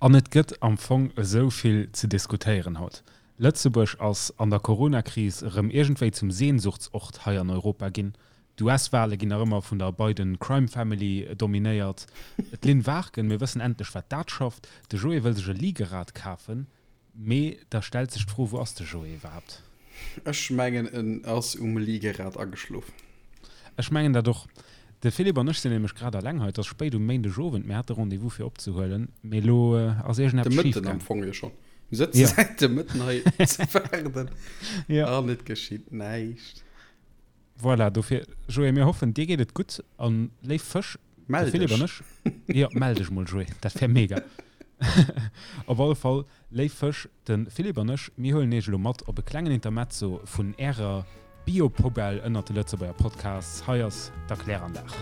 An et gëtt am Fong esou vill ze diskutéieren haut. Lëtzebuerg ass an der Coronakris erëm iergendwéi zum Sehnsuchtsort hei an Europa ginn. D'US-Wale ginn nach ëmmer vun der Biden Crime Family dominéiert. D'Lynn Warken, mir wëssen endlech wat dat schafft. De Joé wëll sech e Liegerad kafen. Mee da stellt sech d'Fro, wou ass de Joé iwwerhaapt? Ech mengen en ass um Liegerad ageschlof. Ech mengen dat och. De Philippe an ech sinn nämlech grad alleng hei. Et ass spéit um Méindegowend. Mir hate Rendez-vous fir opzehuelen, mee elo ass De iergendeppes schief Mëtten am gaang. Fong jo schonn. Mir sëtze Ja. säit dem Mëtten hei ze waarden Ja. an et geschitt näischt. Voilà, dofir, Joé, mir hoffen, dir geet et gutt. An léif Fësch, de Mell Philippe an dech. ech, jo, mell dech mol, Joé, dat wär mega. Op alle Fall, léif Fësch, de Philippe an ech, mir huelen iech elo mat op e klengen Intermezzo vun ärer Bio-Poubelle ënnert de Lëtzebuerger Podcasts. Hei ass d'Erkläranlag.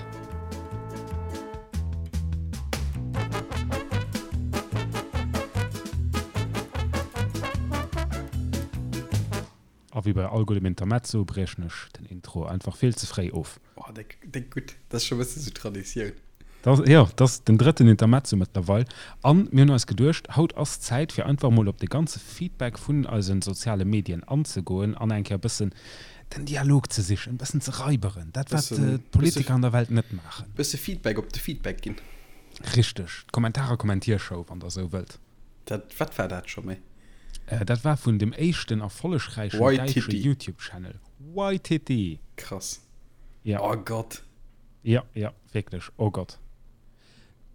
A wéi bei all guddem Intermezzo briechen ech den Intro einfach vill ze fréi of. Oh, déck, déck gutt. Dat ass scho e bësse sou Traditioun. Dat, jo, dat ass den drëtten Intermezzo mëttlerweil. An mir hunn eis geduecht, haut ass Zäit fir einfach mol op de ganze Feedback vun eise soziale Medien anzegoen an eng Kéier e bëssen den Dialog ze sichen, e bëssen ze raiberen, dat wat d'Politiker an der Welt net maachen. Bësse Feedback op de Feedback ginn. Richteg, d'Kommentar-a-Kommentiershow, wann der esou wëllt. Dat, wat war dat scho méi? Dat war vun dem éischten erfollegräichen däitsche YouTube-Channel. Waititi! Krass. Ja. Oh Gott. Ja, ja, wierklech. Oh Gott.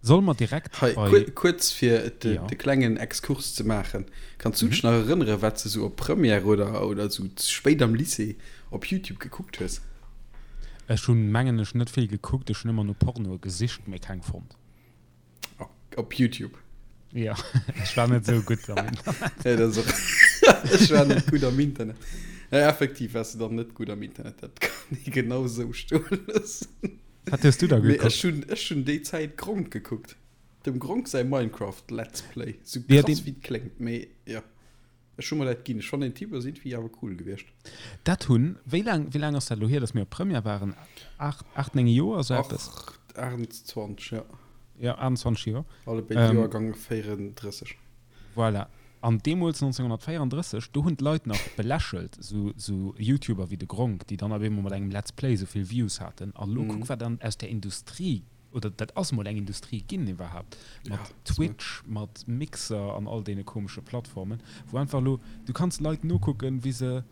Solle mer direkt Hei, bei. Kuerz fir de, ja. de klengen Exkurs ze maachen. Kanns du dech mhm. nach erënnere, wat se sou op Première oder, oder sou spéit am Lycée op YouTube gekuckt hues? Ech hunn, mengen ech, net vill gekuckt. Ech hunn ëmmer no Pornoe gesicht, mee keng fonnt. Op YouTube. Ja, ech war net sou gutt am Internet. Ja, dat ass och. Ech war net gutt am Internet. Ja, effektiv waars du dann net gutt am Internet. Dat kann ee genau sou stoe loossen. Wat hues du da Mee ech gekuckt? hunn, ech hunn déi Zäit Gronkh gekuckt. Dem Gronkh säi Minecraft Let's Play. Sou Ja, krass deen. wéi et kléngt, mee ja. Ech hu mer dat ginn. Ech fannen den Typ ass iergendwéi awer cool gewiescht. Dat hunn, wéi laang, wéi laang ass dat elo hier, datt mir op Première waren? 8, 8, 9 Joer, esou eppes? 28, ja. Ja, 28 Joer. Alle béid ähm, Joergang 34. Voilà. An deemools 1934, do hunn d'Leit nach belächelt, sou, sou YouTuber wéi de Gronkh, déi dann op eemol mat engem Let's Play sou vill Views haten. An elo mm. kuck, wat dann aus der Industrie oder dat ass mol eng Industrie ginn iwwerhaapt, mat ja, Twitch, mat Mixer an all deene komesche Plattformen, wou einfach elo, du kanns Leit nokucken, wéi se,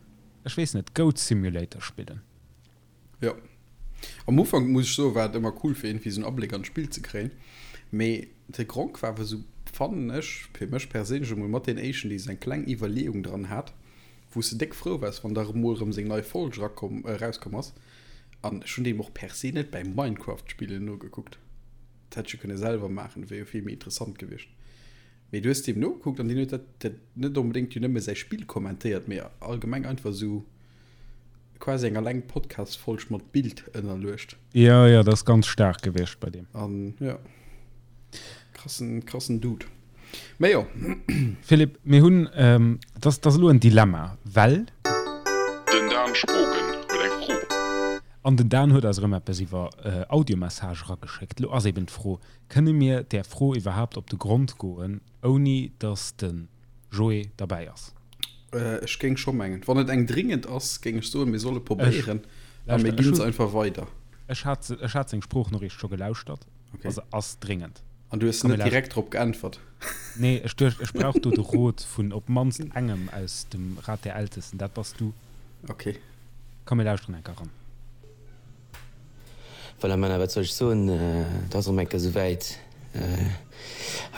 ech weess net, Goat Simulator spillen. Jo. Am Ufank, muss ech soen, war et ëmmer cool, fir iergendwéi esou en Abléck an d'Spill ze kréien. Mee de Gronkh war awer esou, fannen ech, fir mech perséinlech emol, mat deen éischten, dee esou eng kleng Iwwerleeung dran hat, wou s de déck frou waars, wann da emol erëm seng nei Folg erakomm, erauskomm ass. An ech hunn deem och per se net bäim Minecraft spillen nogekuckt. Dat hätt ech jo kënne selwer maachen, dat wier jo vill méi interessant gewiescht. Mee du hues deem nogekuckt an deen huet dat, dat net onbedéngt jo nëmme säi Spill kommentéiert, mee allgemeng einfach esou quasi eng alleng Podcast-Folg mat Bild ënnerluecht. Jo, jo, dat ass ganz staark gewiescht bei deem. An jo, krassen, krassen Dude. Mee jo. Philippe, mir hunn, et ass, et ass elo en Dilemma, well. Den Dan Spogen huet eng Fro. An den Dan huet eis erëm eppes iwwer Audiomessage erageschéckt. Elo ass eben d'Fro, Kënne mir där Fro iwwerhaapt op de Grond goen, ouni datt de Joé derbäi ass? Ech géing scho mengen, wann et eng dringend ass, géing ech soen, mir solle probéieren a mir ginn se einfach weider. Ech hat, ech hat seng Sproochnoriicht scho gelauschtert. Okay. Also ass dringend. An du hues net direkt drop geäntwert? Nee, ech duecht, ech brauch do de Rot vun op d'mannst engem aus dem Rat der Ältesten. Dat bass du. Okay. Komm, mir lauschteren eng Kéier eran. Voilà, Männer, wat soll ech soen, et ass erëm eng Kéier esouwäit.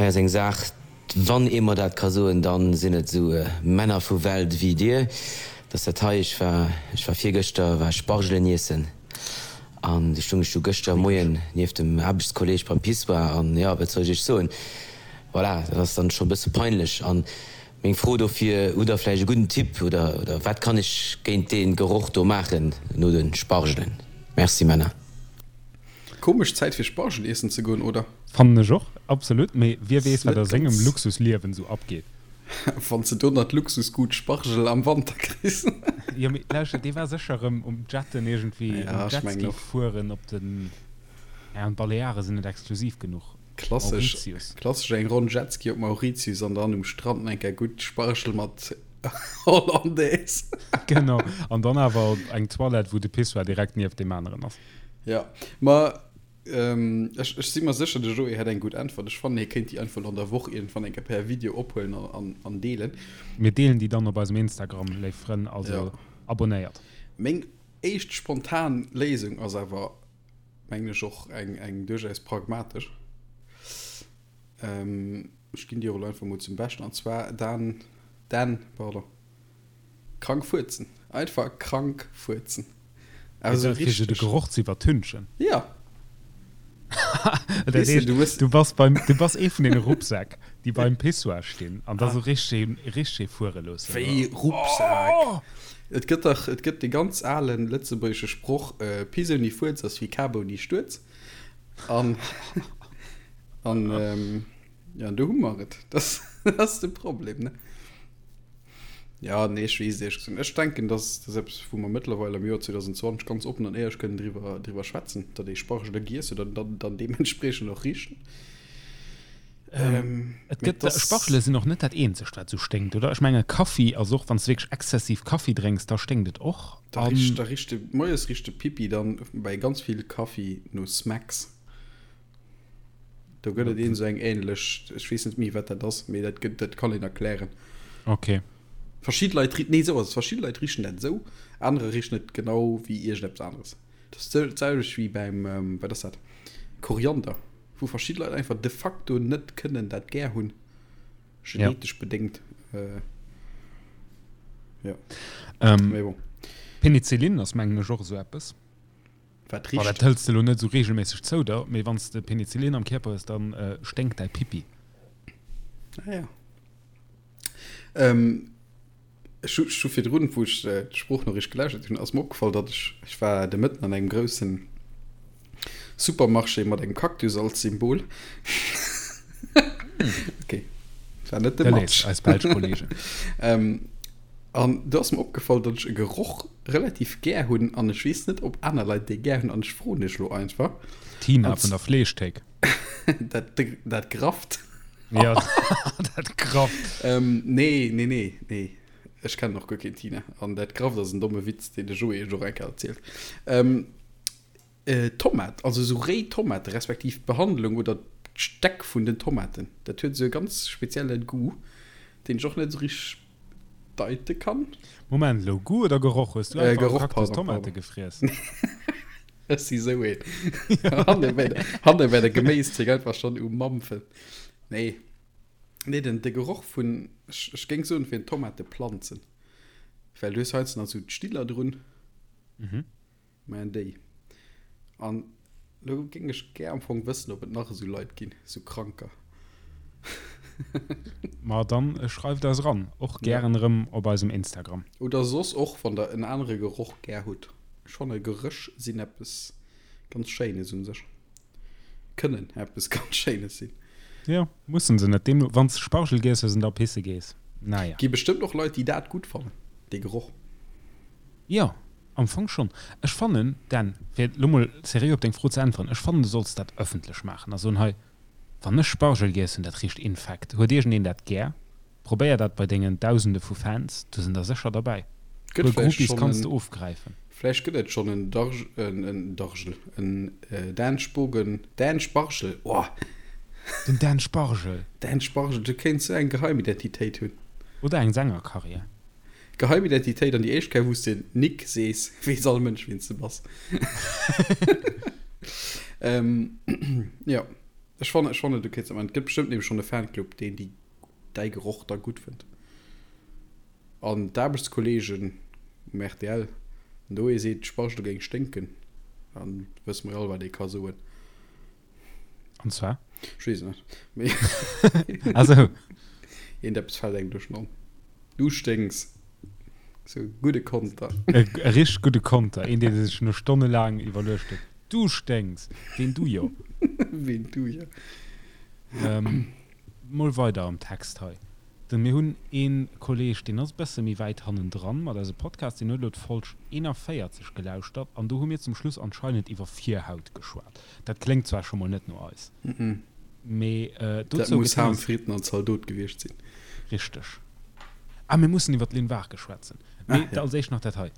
Hei ass eng Saach, wann ee mer dat ka soen, da sinn et esou Männer vu Welt ewéi dir, dass dat hei, ech war, ech war virgëschter war ech Spargelen iessen an du stung ech du gëschter Moien nieft dem Aarbechtskolleg beim Pissoir an, jo, wat soll ech iech soen, voilà, dat ass dann scho e bësse peinlech. An meng Fro dofir, Hutt der vläicht e gudden Tipp oder, oder wat kann ech géint dee Geroch do maachen no de Spargelen? Merci Männer. Komesch Zäit fir Spargel iessen ze goen, oder? Fannen ech och, absolut, mee wie weess wat a sengem Luxusliewen sou abgeet. Wann s de do nach d'Luxusgut Spargel am Wanter kriss. Jo mee lauschter, dee war sécher erëm um Jetten iergendwéi, um Jetski fueren op den, ja an d'Baleare sinn net exklusiv genuch. Klassesch, Mauritius. klassesch eng Ronn Jetski op Mauritius an dann um Strand eng Kéier gutt Spargel mat Hollandaise. Genau, an dann awer eng Toilette, wou de Pissoir direkt nieft deem aneren ass. Ja, ma ech, ech si mer sécher, de Joé hätt eng gutt Äntwert. Ech fannen, hie kéint déi einfach elo an der Woch iergendwann eng Kéier per Video ophuelen an, an, an deelen. Mir deelen déi dann op eisem Instagram, léif Frënn, also Ja. abonnéiert. Meng éischt spontan Léisung ass awer, mengen ech, och eng, eng duerchaus pragmatesch. Ech ginn déi och elo einfach mol zum Beschten, an zwar Dan, Dan, pardon, krank fuerzen. Einfach krank fuerzen. Awer esou Fir se de richteg. Geroch ze iwwertünchen. Ja. Dat Weess de, heescht, du hues. du bass beim, du bass ee vun deene Rucksäck, déi beim Pissoir stinn an da sou richteg, richteg fuere loossen. Wéi Rucksak? Et gëtt dach, et gëtt dee ganz alen lëtzebuergesche Sproch, Piss ouni Fuerz ass wéi Kap ouni Stuerz. An, an, ja, do hu mer et. Dat ass de Problem, ne? Ja, nee, ech weess et éierlech gesot net. Ech denken, dass dat ass eppes, wou mer mëttlerweil am Joer 2020 ganz oppen an éierlech kënnen driwwer, driwwer schwätzen, datt ee Spargele giess huet an dann, dann deementspriechend och richen. Ähm, et Mee gëtt, dass. Spargele sinn och net dat eenzegt, wat esou sténkt, oder? Ech menge Kaffi ass och, wann s de wierklech exzessiv Kaffi drénks, da sténkt et och. Da richt, An da richt de, moies richt de Pipi dann bei ganz vill Kaffi no Smacks. Do gëtt et een esou eng ähnlech, ech weess net méi wat dat ass, mee dat gëtt, dat kann een erklären. Okay. Verschidde Leit ri-, nee esou ass et, verschidde Leit richen dat esou, anerer richen et genau wéi iergendeppes aneres. Dat ass d'selwecht wéi beim, wat ass dat, Koriander, wou verschidde Leit einfach de facto net kënnen dat gär hunn, genetesch bedéngt. Jo, mee bon. Penicillin ass mengen ech och esou eppes. Wat richt? Dat hëls de lo net esou regelméisseg zou der, mee wann s de Penicillin am Kierper hues, dann sténkt däi Pipi. Ah ja. Ähm, ech hu, ech hu virdrun, wou ech d'Sproochnoriicht gelauschtert hunn, ass mer opgefall, datt ech, ech war de Mëtten an engem groussen Supermarché mat engem Cactus als Symbol. Okay, war net de Match. Eis belsch Kollegen. Ähm, an do ass mer opgefall, datt ech e Geroch relativ gär hunn an ech weess net ob aner Leit dee gär hunn an ech froen iech lo einfach. D'Tina vun der Fleeschthéik. Dat dat Grafft. Ja dat Grafft. Ähm, nee, nee, nee, nee. Ech kennen och guer keen Tina. An dat Grafft ass en domme Witz, deen de Joé iech och eng Kéier erzielt. Ähm, äh, Tomat, also esou réi Tomate respektiv d'Behandlung oder d'Stäck vun den Tomaten, dat huet esou e ganz spezielle Goût, deen ech och net esou richteg deite kann. Moment elo, Goût oder Geroch? Hues du Äh, einfach Geroch, Cactus pardon, Tomate pardon. gefriess? Ech si sou een. Hanne bei der, hanne bei der Geméisthek einfach schon um Mampfen. Nee. Nee, den, de Geroch vun, ech, ech géing soen, fir Tomateplanzen. Well du hues heiansdo nach sou d'Stiller drun. Mhm. Mä déi. An lo géing ech gär am Fong wëssen, ob et nach esou Leit ginn, esou Kranker. Ma dann schreift eis eran, och gären erëm op eisem Instagram. Oder soss och, wann der en anere Geroch gär hutt. Ech fanne Geréch sinn eppes ganz Schéines un sech. Kënnen eppes ganz Schéines sinn. Jo, mussen se net. Deemno, wann s de Spargel giess hues an da pisse gees, naja. Gi bestëmmt och Leit, déi dat gutt fannen, dee Geroch. Jo, am Fong schonn. Ech fannen, Dan, fir elo mol seriö op deng Fro ze äntweren, ech fannen, du solls dat ëffentlech maachen a soen, hei, wann ech Spargel giess hunn, dat richt infekt. Huet iergendeen dat gär? Probéier dat bei dengen Dausende vu Fans, do sinn der sécher derbäi. Gëtt Puer vläicht Groupies schonn kanns en, de ofgräifen. vläicht gëtt et schonn en Darg, en, en Dargel, en Dan Spogen, Dan Spargel, oh! Den Dan Spargel! Dan Spargel, du kéints sou eng Geheimidentitéit hunn. Oder eng Sängerkarriär. Geheimidentitéit an déi éischt Kéier wous de Nick sees, weess all Mënsch wien s de bass. Jo, ech fannen, ech fannen du kéints dat maachen. Et gëtt bestëmmt nämlech schonn e Fanclub deen déi däi Geroch da gutt fënnt. An d'Aarbechtskolleegen um rtl, wann do ee seet d'Spargele géing sténken, dann wësse mer jo all wat ee ka soen. An zwar? Ech weess et net. Mee Ah sou. Iergendeppes fält engem duerch den An. Du sténks. Sou e gudde Konter. E richteg gudde Konter. Een, dee sech no stonnelaang iwwerluecht huet. Du sténks! Ween du jo? Ween du jo? Mol weider am Text hei. Den, mir hunn ee Kolleg, deen ass e bësse méi wäit hannendran mat eise Podcast, deen huet elo d'Folg 41 gelauschtert an do hu mir zum Schluss anscheinend iwwer Virhaut geschwat. Dat kléngt zwar scho mol net no eis. Mee Dat dozou muss gëtt hien Ham, eis. Fritten an Zaldot gewiescht sinn. Richteg. Ah, mir mussen iwwer d'Lynn Waarke schwätzen. Ah, Mee ja. als éischt nach dat hei.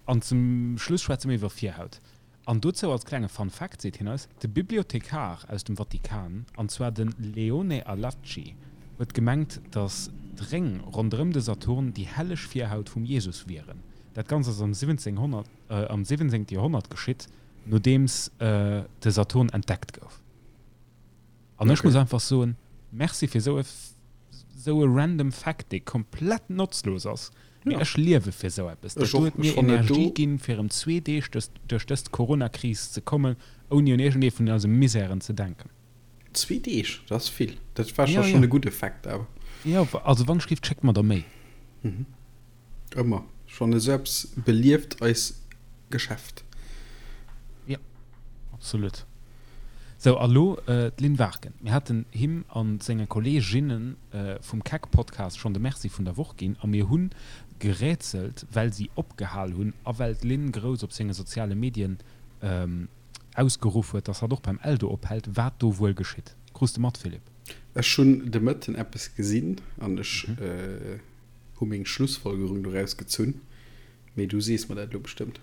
An zum Schluss schwätze mir iwwer Virhaut. An dozou als klenge Fun Fact seet hien eis, De Bibliothekar aus dem Vatikan, an zwar de Leone Allacci, huet gemengt, datt d'Réng ronderëm de Saturn déi helleg Virhaut vum Jesus wieren. Dat Ganzt ass am 1700, am 17. Joerhonnert geschitt, nodeems de Saturn entdeckt gouf. An ech muss einfach soen, Merci fir esou e esou e random Fact, dee komplett notzlos ass, mee ech liewe fir esou eppes. Dat do huet mir Energie ginn, fir erëm zwee Deeg duerch dës Corona-Kris ze kommen, ouni un iergendee vun eise Misären ze denken. Zwee Deeg, dat ass vill. Dat war scho schonn e gudde Fact awer. Jo, also wann ech géif, schéckt mer der méi. Ëmmer schonn esou eppes belieft eis Geschäft. Jo, absolut. Sou, a lo d'Lynn Warken. Mir haten him a senge Kolleeginne vum Keck-Podcast schonn de Merci vun der Woch ginn a mir hu gerätselt, well si opgehal hunn a well d'Lynn grouss op senge soziale Medien ausgeruff huet, dass hatt och beim Eldo ophält, wat do wuel geschitt. Krus de mat, Philippe? Ech hunn de Mëtten eppes gesinn an ech Hu meng Schlussfolgerung doraus gezunn, mee du sees mer dat elo bestëmmt.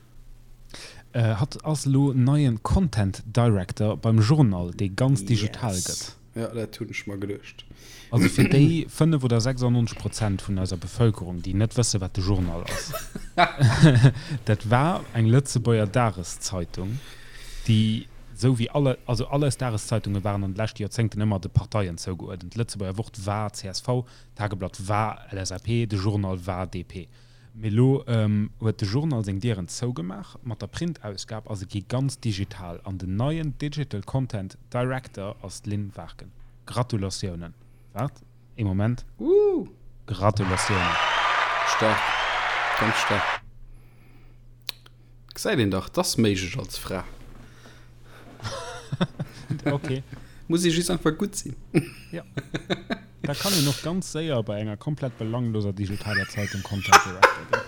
Hatt ass elo neien Content Director beim Journal, dee ganz digital gëtt. Yes, jo dat hunn ech mer geduecht. Also fir déi 5 oder 96 Prozent vun eiser Bevëlkerung, déi net wësse wat de Journal ass, dat war eng Lëtzebuerger Dageszeitung, déi esou wéi alle, also all eis Dageszeitunge waren an de leschte Joerzéngten ëmmer de Parteien zougeuerdent. D'Lëtzebuerger Wort war csv, D'Tageblatt war LSAP, de Journal war DP. Mee elo huet de Journal seng Dieren zougemaach mat der Printausgab a se gi ganz digital. An den neien Digital Content Director ass d'Lynn Warken. Gratulatiounen! Waart ee Moment. Woo! Gratulatiounen! Staark, ganz staark. Gesäit een dach, 't ass méiglech als Fra. Ok. Muss ee just einfach gutt sinn. Jo. Da kann een och ganz séier bei enger komplett belangloser digitaler Zeitung Content Director ginn.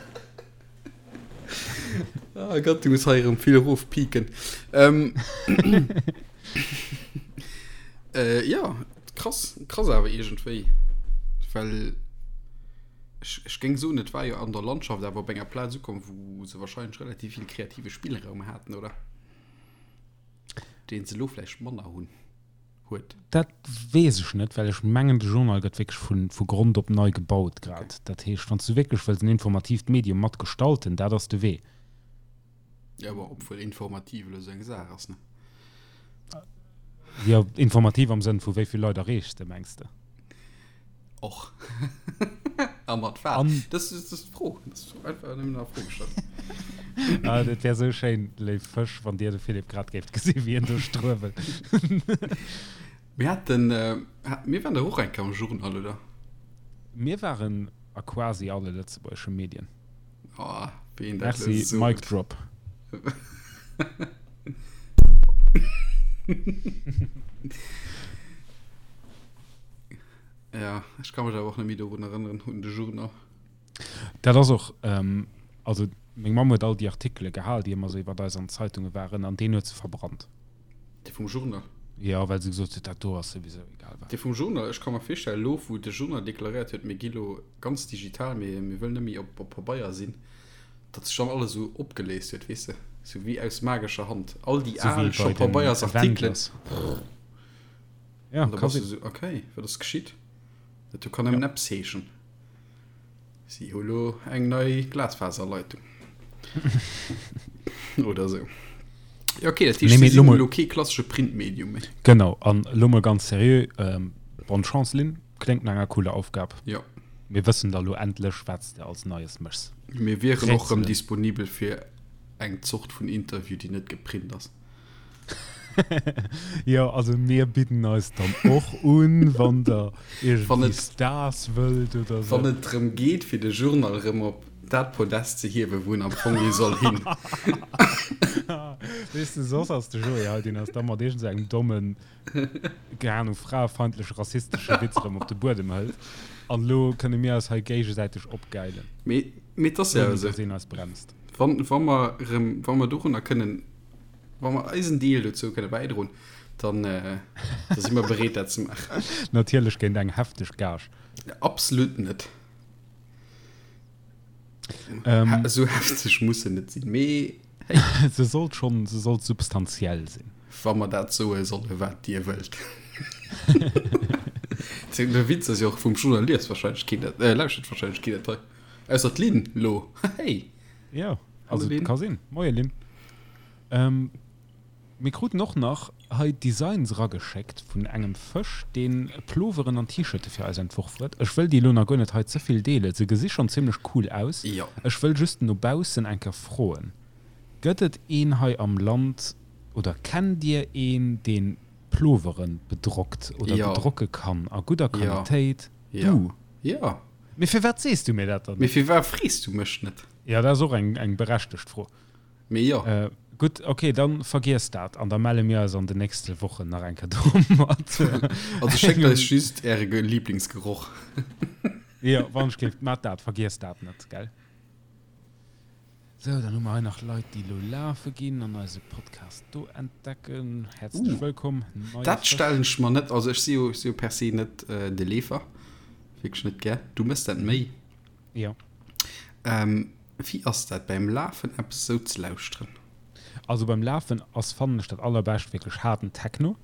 Ah Gott, du muss hei erëm vill erofpiken. Ähm, äh, ja, krass, krass awer iergendwéi. Well ech, ech géing soen, et war jo an der Landschaft awer op enger Plaz ukomm, wou se wahrscheinlech relativ vill kreative Spillraum haten, oder? Deen se elo vläicht manner hunn. huet. Dat weess ech net, well ech mengen, de Journal gëtt wierklech vu, vu Grond op nei gebaut grad. Okay. Dat heescht, wann s du wierklech wëlls en informatiivt Medium mat gestalten, dat ass de Wee. Ja, bon, obwuel informativ elo esou eng Saach ass, ne? Jo, informativ am Sënn vu wéi vill Leit erreechs de, mengs de? Och. A mat wat? An Das ist, das ist d'Fro. Das ist einfach nëmmen a Fro gestallt. Ah, dat wär sou schéin, léif Fësch, wann Dir de Philippe grad géift gesi wéi en do struewelt. Mir haten, äh, mir waren dach och eng Kéier am Journal, oder? Mir waren a quasi alle lëtzebuergesche Medien. Oh, wéi een dat elo Merci, sot. Mic drop. Ja, ech ka mech awer och net méi dorun erënneren, un de Journal. Dat ass och, also meng Mamm huet all déi Artikele gehal, déi ëmmer sou iwwert eis an Zeitunge waren, an deen huet se verbrannt. Dee vum Journal? Jo, well se gesot huet, dat do ass souwisou egal wat. Dee vum Journal, ech ka mer virstellen, elo wou de Journal deklaréiert huet, mir gi lo ganz digital, mir, mir wëllen net méi op, op Pabeier sinn, datt sech dann alles esou opgeléist huet, weess de, sou wéi aus magescher Hand, all déi al scho Pabeiersartikelen. Ja, An da bass du sou, okay, wat ass geschitt? Dat do kann nëmmen eppes heeschen. Si hu lo eng nei Glasfaserleitung. Oder sou. Ja, okay, dat heescht, Nee, mee si lo sinn mol- elo kee klassesche Printmedium méi. Genau, an lo mol ganz seriö, ähm, bonne Chance, Lynn. Kléngt no enger cooler Aufgab. Jo. Mir wëssen da lo endlech, wat s de als Neies méchs. Mir wieren och rëm Rätselen. disponibel fir eng Zort vun Interview, déi net geprint ass. Jo, also mir bidden eis dann och un, wann der Wann iergendwéi et, Stars wëllt oder wann sou. et drëm geet, fir de Journal erëm op dat Podest ze hiewen, wou en am Fong hi soll hin. Weess de, soss ass de Joé hei, deen ass da mat iergend sou engem dommen, keng Ahnung, fraefeindleche, rassistesche Witz erëm op de Buedem hëlt. An elo kënne mir eis hei géigesäiteg opgäilen, Mee, mee et ass jo ouni esou, dass een eis bremst. wann, wa mer erëm, wa mer dorunner kënnen Wa mer eisen Deel dozou kënne bäidroen. Dann, da si mer bereet, dat ze maachen. Natierlech géint eng hefteg Gage. Absolut net. Ähm, Esou hefteg muss se net sinn, mee hey. Se sollt schonn, se sollt substantiell sinn. Wa mer dat soe solle wat Dir wëllt. De Witz ass jo och vum Journal liest wahrscheinlech keen dat, äh, lauschtert wahrscheinlech keen dat hei. Ausser d'Lynn lo. Hey! Jo, also ka sinn. Moie Lynn. Ähm, Mir kruten och nach hei Designs erageschéckt vun engem Fësch, deen Ploveren an T-Shirte fir eis entworf huet. Ech wëll déi elo nach guer net hei ze vill deelen, se gesi schonn zimlech cool aus. Jo. Ech wëll just no baussen eng Kéier froen, Gëtt et een hei am Land oder kennt dir een, deen Ploveren bedrockt oder Jo. bedrocke kann a gudder Jo. Qualitéit? Jo. Du? Jo. Mee firwat sees du mir dat dann Mee net? firwat frees du mech net? Jo, dat ass och eng eng berechtegt Fro. Mee jo. Gutt, ok, dann vergiesst dat an da melle mir eis an den nächste Wochen nach eng Kéier domat. Also schéckt eis just äre Lieblingsgeroch. Jo, wann ech géif, mat dat, vergiesst dat net, gell? Sou, dann hu mer hei nach Leit, déi elo lafe ginn an eise Podcast do entdecken. Häerzlech wëllkomm, neie Dat Fësch. stellen ech mer net, also ech si jo, ech si jo per se net de Leefer, wierklech net gär. Du mëss dat méi. Jo. Ähm, wéi ass dat beim Lafen eppes esou ze lauschteren? Also beim Lafen ass fannen ech dat allerbescht wierklech haarden Techno,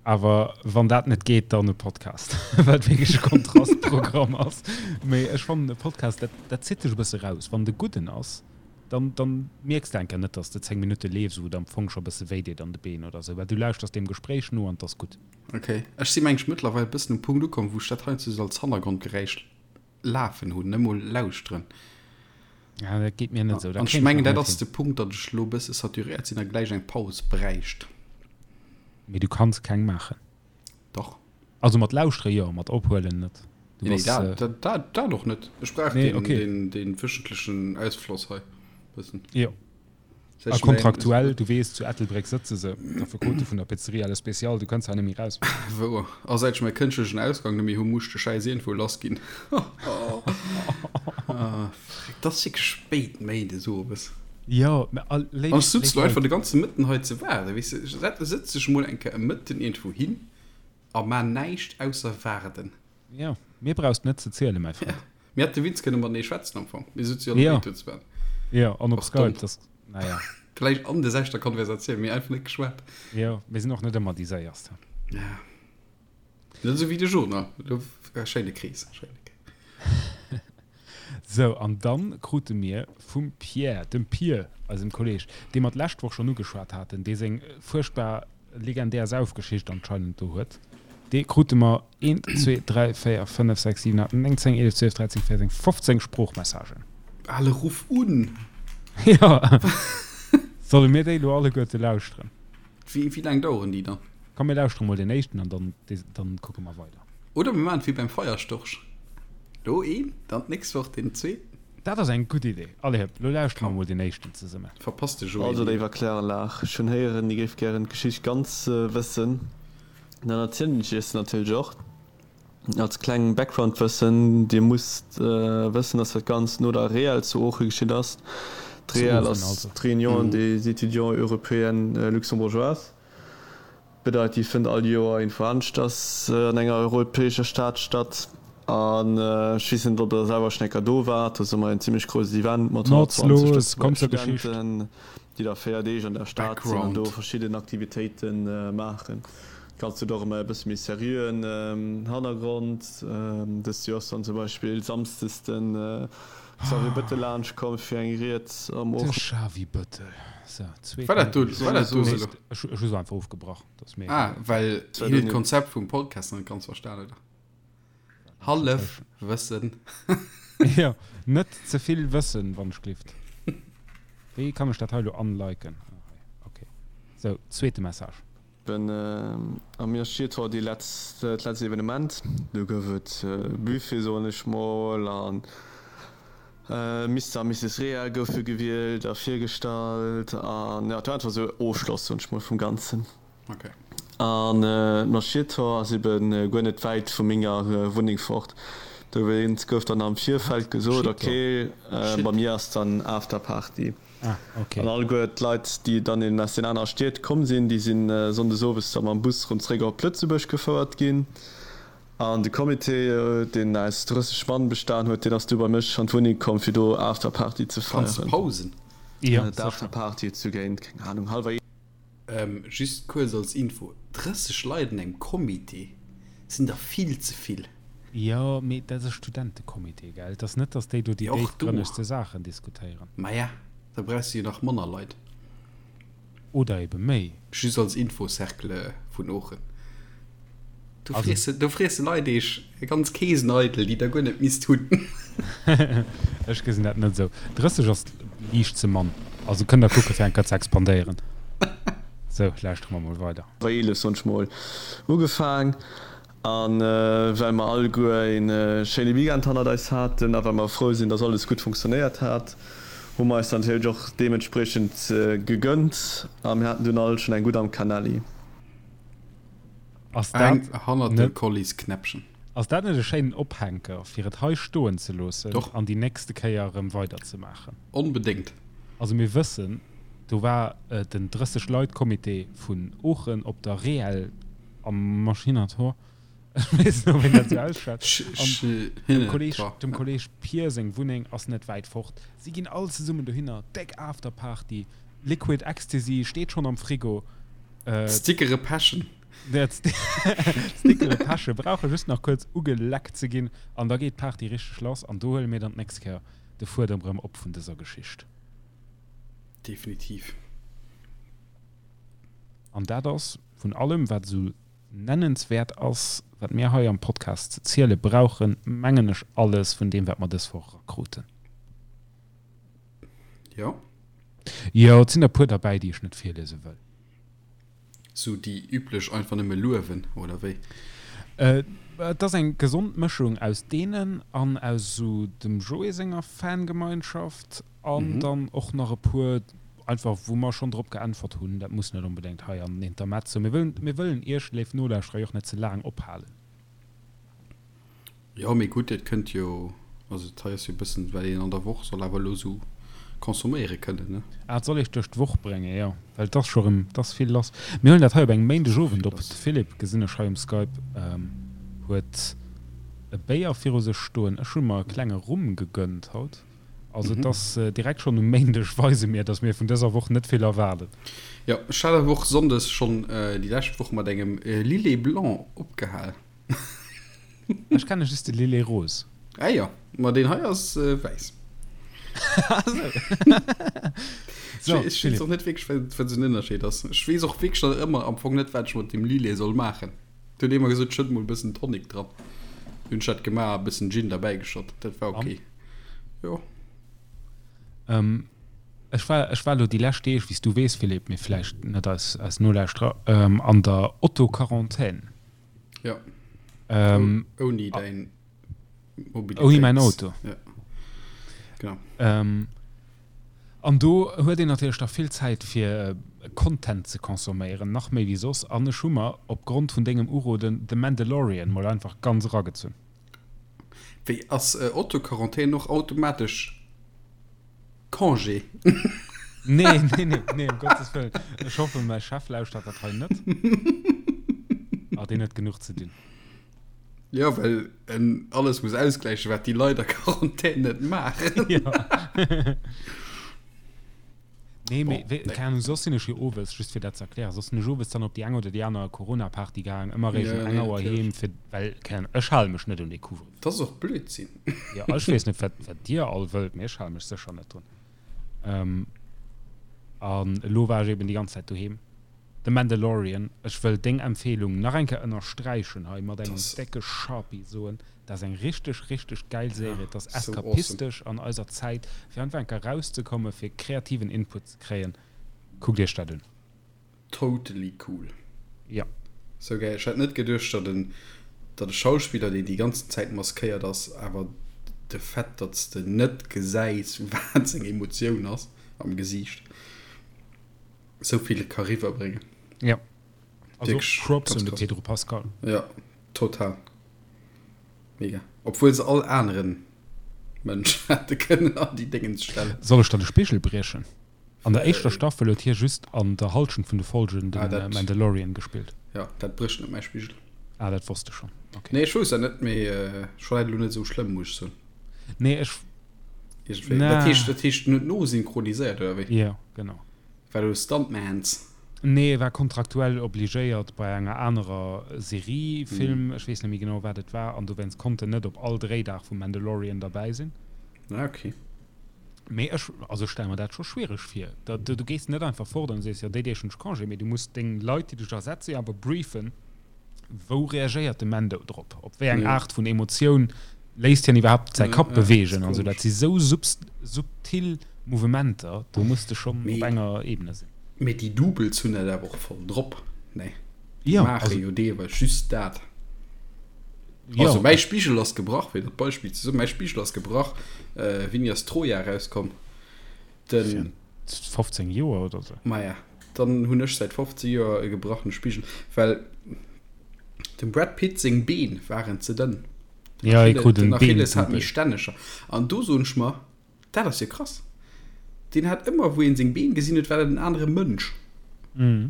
awer wann dat net geet, dann e Podcast, wat wierklech e Kontrastprogramm ass. Mee ech fannen e Podcast, dat dat zitt dech e bësse raus. Wann de gudden ass, dann dann mierks de enker net, dass de 10 Minutte leefs, wou et am Fong scho e bësse wéi deet an de Been oder sou, well du lauschters deem Gespréich no an 't ass gutt. Ok, ech si mengen ech mëttlerweil e bëssen um Punkt ukomm, wou ech dat heiansdo sou als Hannergrondgeräisch Lafen hunn, net mol lauschteren. Ja, dat geet mir net esou. An ech mengen, dat ass de Punkt, datt ech elo e bësse saturéiert sinn a gläich eng Paus bräicht. Mee du kanns keng maachen. Dach. Also mat lauschtere jo, mat ophuelen net. Du nee, dat, dat, dat, dat och net. Ech brauch nee, den, okay. den, den wöchentlechen Ausfloss hei. Bëssen. Jo. A kontraktuell, du weess, zu Ettelbréck sëtze se, d'Affekote vun der Pizzeria Le Spécial, du kënns hei net méi raus. Wouer. A säit ech mäi kënschtlechen Ausgang net méi hu, muss ech de Schäiss iergendwou lass ginn. Et ass wierklech spéit Méindes owes. Jo, mä a léif, An ech sutz lo einfach de ganze Mëtten hei ze waarden, weess de. Sëtz dech mol eng Kéier e Mëtten iergendwou hin a maa näischt ausser waarden. Jo, mir brauchs net ze zielen, mäi Frënd. Mir hätte Witz kënne matenee schwätzen am Fong. Mir sutze jo alle béid do zu Bern. Jo, an op Skype, dass, naja. Vläicht an der selwechter Konversatioun, mee einfach net geschwat. Jo, mir sinn och net ëmmer déi Séierst. Ja. Net esou wéi de Journal. Do, schéine Krees, schéine Krees. Sou, an dann krute mir vum Pierre, dem Pier, eisem Kolleg, dee mer d'lescht Woch schonn ugeschwat haten, dee seng fuerchtbar legendär Saufgeschicht anscheinend do huet, dee krute mer eent, zwee, dräi, véier, fënnef, sechs, siwen, aacht, néng, 10, 11, 12, 13, 14, 15 Sproochmessagen. Ale ruff un! Jo. Solle mir déi elo alleguerte lauschteren? Wéi, wéi laang daueren déi dann? Komm mir lauschtere mol deen éischten an dann, dann kucke mer weider. Oder mir maachen et wéi beim Feierstorch, Lo een, dann d'nächst Woch deen zweeten. Dat ass eng gutt Idee. Allez hëpp, lo lauschtere mer mol deen éischten zesummen. Verpasst de Joé Also léiwer Kläranlag, ech hunn héieren, Dir géift gären d'Geschicht ganz wëssen. Dann erzielen ech Iech se natierlech och. Als kleng Background-Wëssen, Dir musst wëssen, dass dat Ganzt no der REEL zu Ooche geschitt ass. D'REEL ass d'Réunion des étudiants européens luxembourgeois. Bedeit, déi fënnt all Joer iergendwou aneschters an enger europäescher Stad statt. An ech weess net, ob Der selwer schonn eng Kéier do waart. Do ass ëmmer en zimmlech grousst Event mat 120 Lëtzebuerger Studenten, déi da 4 Deeg an der Stad sinn an do verschidden Aktivitéite maachen. Dat Ganzt huet och ëmmer e bësse méi seriöen Hannergrond. Dëst Joer ass dann zum Beispill samsdes de Xavier Bëttel laanscht komm fir eng Ried am De Xavi Bëttel. So, zweet War dat do, war dat do sou? Ech hu se einfach ofgebrach. Dat ass mir egal. Ah, well hien huet d'Konzept vum Podcast net ganz verstan, oder? Hallef Wëssen. Jo, net ze vill Wëssen, wann ech glift. Wéi kann ech dat hei elo unliken? Ah, hei, okay. Sou, zweete Message. Ben a mir steet haut déi letzt, dat letzt Evenement. Do gouf et Buffet, soen ech mol, an Mister a Misses Reel goufe gewielt a virgestallt an jo, et war einfach esou Ofschloss, soen ech mol, vum Ganzen. Okay. An d'Marschiertor ass eben guer net wäit vu menger Wunneng fort. Dowéinst gouf dann am Virfeld gesot, okay, bei mir ass dann Afterparty. Ah, okay. An alleguer d'Leit, déi dann eben aus den anere Stied komm sinn, déi sinn sonndes owes da mam Bus rëm zréck op Lëtzebuerg gefouert ginn. An de Comité, deen aus 30 Mann bestan huet, deen ass du bei mech an d'Wunneng komm, fir do Afterparty ze Kanns feieren. pausen. Jo, sécher. D'Afterparty huet sou géint, keng Ahnung, hallwer. Just kuerz als Info, 30 Leit an engem Comité sinn der vill ze vill. Jo, mee dat ass e Studentecomité, gell? Et ass net, datt déi do déi Jo, och do. déifgrënnegste Saachen diskutéieren. Maja, da brauchs de jo nach manner Leit. Oder ebe méi. Just als Info, Cercle vun Oochen, do friesse, do friesse Leit eech ganz Keesen eidel, déi der guer net misst hunn. Ech gesinn dat net esou. 30 ass liicht ze mann. Also kënnt der kucke fir eng Kéier ze expandéieren. Sou, lauschtere mer mol weider. Bei 11 soen ech mol ugefaang. A well mer alleguer een schéine Weekend hannert eis haten a well mer frou sinn, dass alles gutt funktionéiert hat, hu mer eis natierlech och deementspriechend gegönnt a mir haten dunn all schonn eng gutt am Canelli. Ass Eng dat hannert dem net Collies Knäppchen. Ass dat net e schéinen Ophänker, fir et hei stoen ze loossen Doch. an déi nächste Kéier erëm weiderzemaachen? Onbedéngt. Also mir wëssen, do war den 30 Leit Comité vun Oochen op der Reel am Maschinator, ech weess net, ob een dat esou ausschwätzt, an dem Kolleg, dem Kolleg Pier seng Wunneng ass net wäit fort. Si ginn all zesummen dohinner, déck Afterparty, Liquid Ecstasy steet schonn am Frigo. D'Stickere pechen. D'Stickere peche brauche just nach kuerz ugeleckt ze ginn an da geet d'Party richteg lass an do huele mir dann d'nächst Kéier de Fuedem erëm op vun dëser Geschicht. Definitiv. An dat ass vun allem, wat esou nennenswäert ass, wat mir hei am Podcast ze ziele brauchen, mengen ech alles vun deem, wat mer dës Woch erakruten. Jo. Jo, et sinn der e puer derbäi, déi ech net virliese wëll. Sou déi üblech einfach nëmme luewen, oder wéi? Et ass eng gesond Mëschung aus deenen an aus esou dem Joé senger Fangemeinschaft an dann och nach e puer einfach wou mer schonn drop geäntwert hunn. Dat muss net onbedéngt hei an den Intermezzo. Mir wëllen, mir wëllen Iech, léif Nolauschterer, jo och net ze laang ophalen. Jo, mee gutt, et kënnt jo, also dat hei ass jo e bëssen, wat een an der Woch soll awer elo esou consomméiere kënnen, ne? Ah, et soll eech duerch d'Woch bréngen, jo, well et ass scho rëm, et ass vill lass. Mir huelen dat hei op engem Méindegowend op. De Philippe, gesinn ech hei um Skype, huet e Béier viru sech stoen. Ech hu mer e klenge Rum gegönnt haut. Also et ass direkt schonn um Méindeg weise mir, datt mir vun dëser Woch net vill erwaarden. Jo, ech hat awer och sonndes schonn déi lescht Woch mat engem Lillet Blanc opgehal. Ech kenne just de Lillet Rose. Ah jo, ma deen hei ass wäiss. So, Ech weess och net wierklech, wat wat esou den Ënnerscheed ass. Ech weess och wierklech nach ëmmer am Fong net, wat ech mat deem Lillet soll maachen. Et huet ee mer gesot, schëtt mol e bëssen Tonic dran. Hunn ech dat gemaach a e bëssen Gin derbäigeschott. Dat war ok. Jo. Ech war, ech war elo déi lescht Deeg, wéi s du weess, Philippe, mee vläicht net eis, eis Nolauschterer, an der Auto-Quarantän. Ja. Ähm, Ouni däin Mobilitéits. Ouni mäin Auto. Ja. Genau. Ähm, an do huet een natierlech da vill Zäit fir Content ze consomméieren, nach méi wéi soss. An ech hu mer op Grond vun dengem Uroden The Mandalorian mol einfach ganz eragezunn. Wéi ass Autoquarantän och automatesch Congé. Nee, nee, nee, nee, um Gottes Wëllen. Ech hoffen, mäi Chef lauschtert dat hei net. Ah, deen huet genuch ze dinn. Ja, well en alles muss ausgläichen, wat déi Leit a Quarantän net maachen. Ja. Nee, mee, Bon, wéi, nee. keng Ahnung, soss sinn ech jo owes, just fir dat ze erklären, soss sinn ech owes dann op déi eng oder déi aner Corona-Party gaang, ëmmer réischt Ja, um eng nee, Auer natierlech. heem, fir, well, keng Ahnung, ech hale mech net un dee Couvre-feu. Dat ass och Blödsinn. Jo, ech weess net, wat, wat dir all wëllt, mee ech hale mech sécher net drun. Ähm, an elo war ech eben déi ganz Zäit doheem. The Mandalorian, ech wëll deng Empfehlung nach eng Kéier ënnersträichen hei mat engem Das, décke Sharpie, soen, dat ass eng richteg, richteg gäil ja, Serie. Et ass so awesome. eskapistesch an eiser Zäit, fir einfach eng Kéier erauszekommen, fir kreativen Input ze kréien. Kuckt iech dat un. Totally cool. Ja. Sou gäil. Ech hätt net geduecht, datt en, datt e Schauspiller, deen déi ganzen Zäit maskéiert ass, awer de Fait, datt s de net gesäis, wat seng Emotioun ass am Gesiicht, sou vill ka riwwerbréngen. Ja. Also Wierklech Props ganz un de krass. Pedro Pascal. Ja, total. Mega. Obwuel se all aneren Mënsch hätte kënnen an déi Déngens stellen. Soll ech der de Spigel briechen? An der éischter Staffel huet hie just an der Halschent vun de Folgen de Mandalorian gespillt. Jo, dat brécht net mäi Spigel. Ah, dat wosst ech schonn. Okay. Nee, ech wousst dat net, mee ech fannen dat elo net esou schlëmm, muss ech soen. Nee, ech. Iergendwéi. Dat heescht, dat heescht net nosynchroniséiert, oder wéi? Jo, genau. War do Stuntmans? Nee, e war kontraktuell obligéiert bei enger anerer Serie, Film, ech weess net méi genau, wat et war, an dowéinst konnt en net op all Dréidag vum Mandalorian derbäi sinn. Ah, okay. Mee ech, also ech stelle mer dat scho schwiereg vir. Da, du gees net einfach fort an sees, jo, déi Deeg hunn ech Congé, mee du muss deng Leit, déi dech ersetze jo awer briefen, wou reagéiert de Mando drop, op wéi eng Aart vun Emotioun léisst hien iwwerhaapt säi Kapp beweegen an esou. Dat si sou subtil Mouvementer, do muss de schonn op enger Ebene sinn. Mee déi Doubles hunn dat awer och voll drop, nee? Déi maache jo deelweis just dat. Also mäi Spigel ass gebrach, fir dat Beispill ze soen, mäi Spigel ass gebrach, wéini ass Troja erauskomm? Den. 15 Joer oder sou. Maja, dann hunn ech säit 15 Joer e gebrachene Spigel, well dem Brad Pitt seng Been waren ze dënn. Den ja, Achilles, den Achilles hat méi stänneger. An do soen ech mer, dat ass jo krass. Deen hat ëmmer, wou een seng Been gesinn huet, war dat en anere Mënsch. Mhm.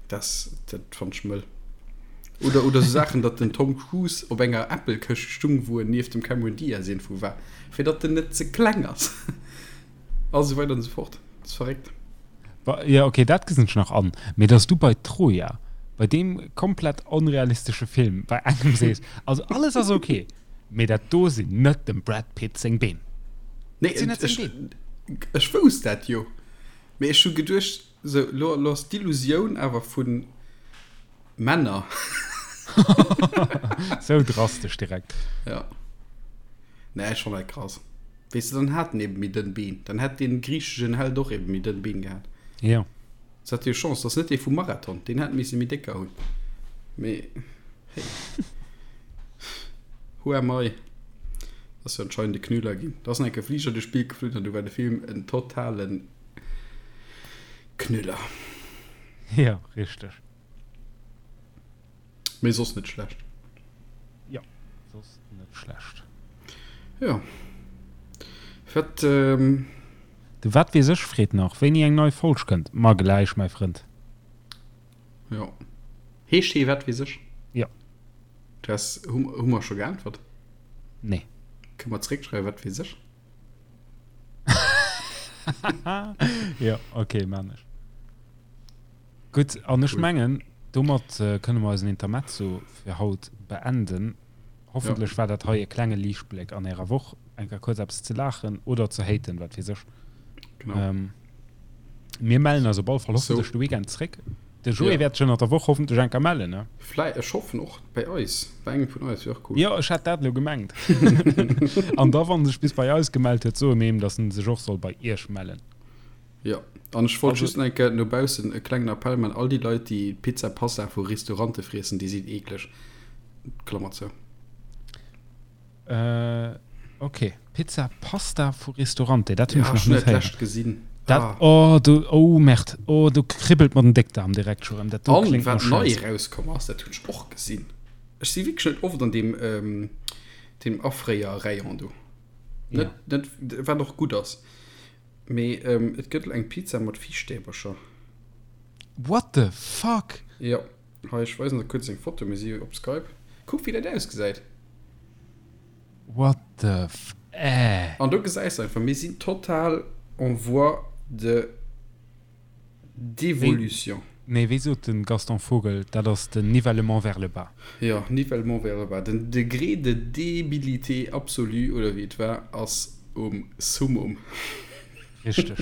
Das, dat fand ech mëll. Oder, oder so Saachen, datt den Tom Cruise op enger Äppelkëscht stung, wou en nieft dem Cameron Diaz iergendwou war, fir datt en net ze kleng ass. A sou weider an sou fort. Dat ass verréckt. Jo, okay, dat gesinn ech nach an. Mee datt s du bei Troja, bei deem komplett onrealistesche Film, bei engem sees, also alles ass okay, mee dat do sinn net dem Brad Pitt seng Been. Nee, Dat sinn net seng Been. Ech wousst dat jo. Mee ech hu geduecht, Sou, lo, lo ass d'Illusioun awer vu Männer. Sou drastesch direkt. Ja. Nee, ech fann dat krass. Weess de, dann hat en eben méi dënn Been. Dann hätt dee griicheschen Held och eben méi dënn Been gehat. Ja. Se hat jo Chance, dat ass net dee vum Marathon. Deen hätt misse méi décker hunn. Mee, hey. Who am I? Ass jo anscheinend e Knüller ginn. Da ass nach enke Fliger duerch d'Bild geflunn an du war de Film en totalen Knüller. Ja, richteg. Mee soss net schlecht. Ja, soss net schlecht. Ja. Wat, ähm. De Wat weess ech freet nach, wéini eng nei Folg kënnt. Ma gläich, mäi Frënd. Jo. Heescht hee Wat weess ech? Ja. Du has, hu, hu mer scho geäntwert? Nee. Kënne mer zeréckschreiwen, Wat weess ech? Jo, okay, maan ech. Gutt, an ech mengen, domat kënne mer eisen Intermezzo fir haut beenden. Hoffentlech war dat hei e klenge Liichtbléck an ärer Woch, eng Kéier kuerz eppes ze laachen oder ze haten, wat weess ech. Genau. Mir mellen eis op alle Fall hoffentlech de Weekend zréck. De Joé wäert sech ënnert der Woch hoffentlech eng Kéier mellen, ne? Vläi, ech hoffen och bei eis, bei engem vun eis, wier och cool. Jo, ech hat dat elo gemengt. An da, wann en sech bis bei eis gemellt huet, soe mir him, datt en sech och soll bei iech mellen. Jo, an ech wollt just nach eng Kéier no baussen e klengen Appell man, all déi Leit, déi Pizza Pasta vu Restaurante friessen, déi sinn eekleg. Klammer zou. Äh, okay. Pizza Pasta vu Ristorante, dat hunn ech nach net héieren. Gesinn. Dat, ah. Oh, du, oh Merde, oh, du kribbelt mer den Déckdarm direkt scho rëm. Dat do kléngt no Schäiss. An wat nei erauskomm ass, dat hunn ech och gesinn. Ech si wierklech net oft an deem, ähm, deem Afréier-Rayon do. Net, ja. net, wat och gutt ass. Mee ähm, et gëtt eng Pizza mat Fischstäbercher. What the fuck? Jo. Hei, ech weisen der kuerz eng Foto, mir si jo op Skype. Kuck wéi dat ausgesäit. What the f äh. An do gesäis de einfach, mir sinn total en voie de d'évolution. Nee, wéi sot de Gaston Vogel, dat ass den nivellement vers le bas. Jo, nivellement vers le bas. Den Degré de débilité absolue, oder wéi et war, ass um Summum. Richteg.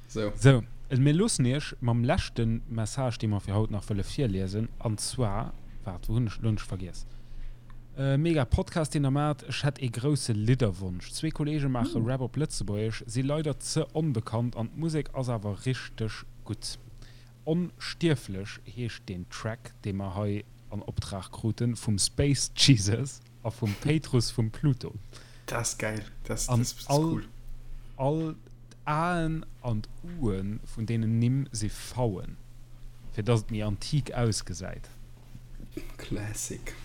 Sou. Sou, mir loossen Iech mam leschte Message, dee mer fir haut nach wëlle virliesen, an zwar, waart, wou hunn ech, lo hunn ech vergiess. Mega Podcast, deen der maacht. Ech hätt ee grousse Lidderwonsch. Zwee Kollege maache Rap op Lëtzebuergesch, si leider ze onbekannt an d'Musek ass awer richteg gutt. Onstierflech heescht deen Track, dee mer hei an Optrag kruten vum Space Jesus. A vum Péitrus vum Pluto. Dat ass gäil. Dat ass cool. All d'Aen an d'Uen vun deenen Nimm si V'en, fir dass et méi antik ausgesäit. Classic.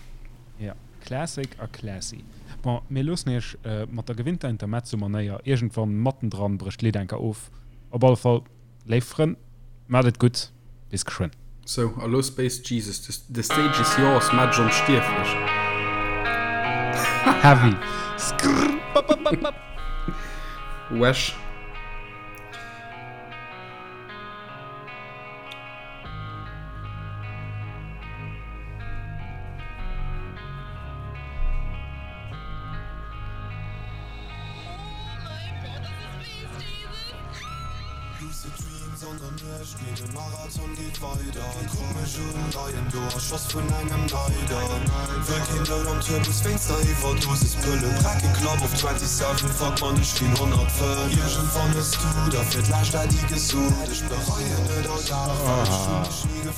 Jo, classic a classy. Bon, mir loossen iech mat der gewinnter Intermezzo-Manéier. Iergendwann mattendran brécht d'Lidd enker of. Op alle Fall, léif Frënn, maacht et gutt, bis geschwënn. Sou, a lo Space Jesus, the stage is yours, maach dech onstierflech. Heavy. Skrrr bap bap bap bap. Wesh.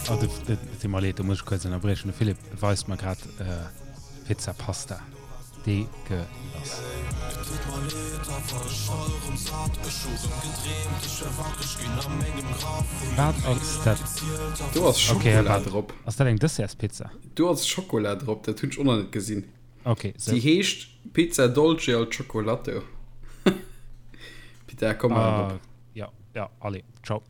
Oh, et deet mer leed, do muss ech kuerz ënnerbriechen. De Philippe weist mer grad Pizza Pasta. Deegelass. Wat ass dat? Do ass Schokola drop. Ass dat eng Dessertspizza? Do ass Schokola drop, dat hunn ech och nach net gesinn. Ok, sou. Déi heescht Pizza Dolce al Cioccolato. Pita, komm, mal op. Ja, ja, allez, ciao.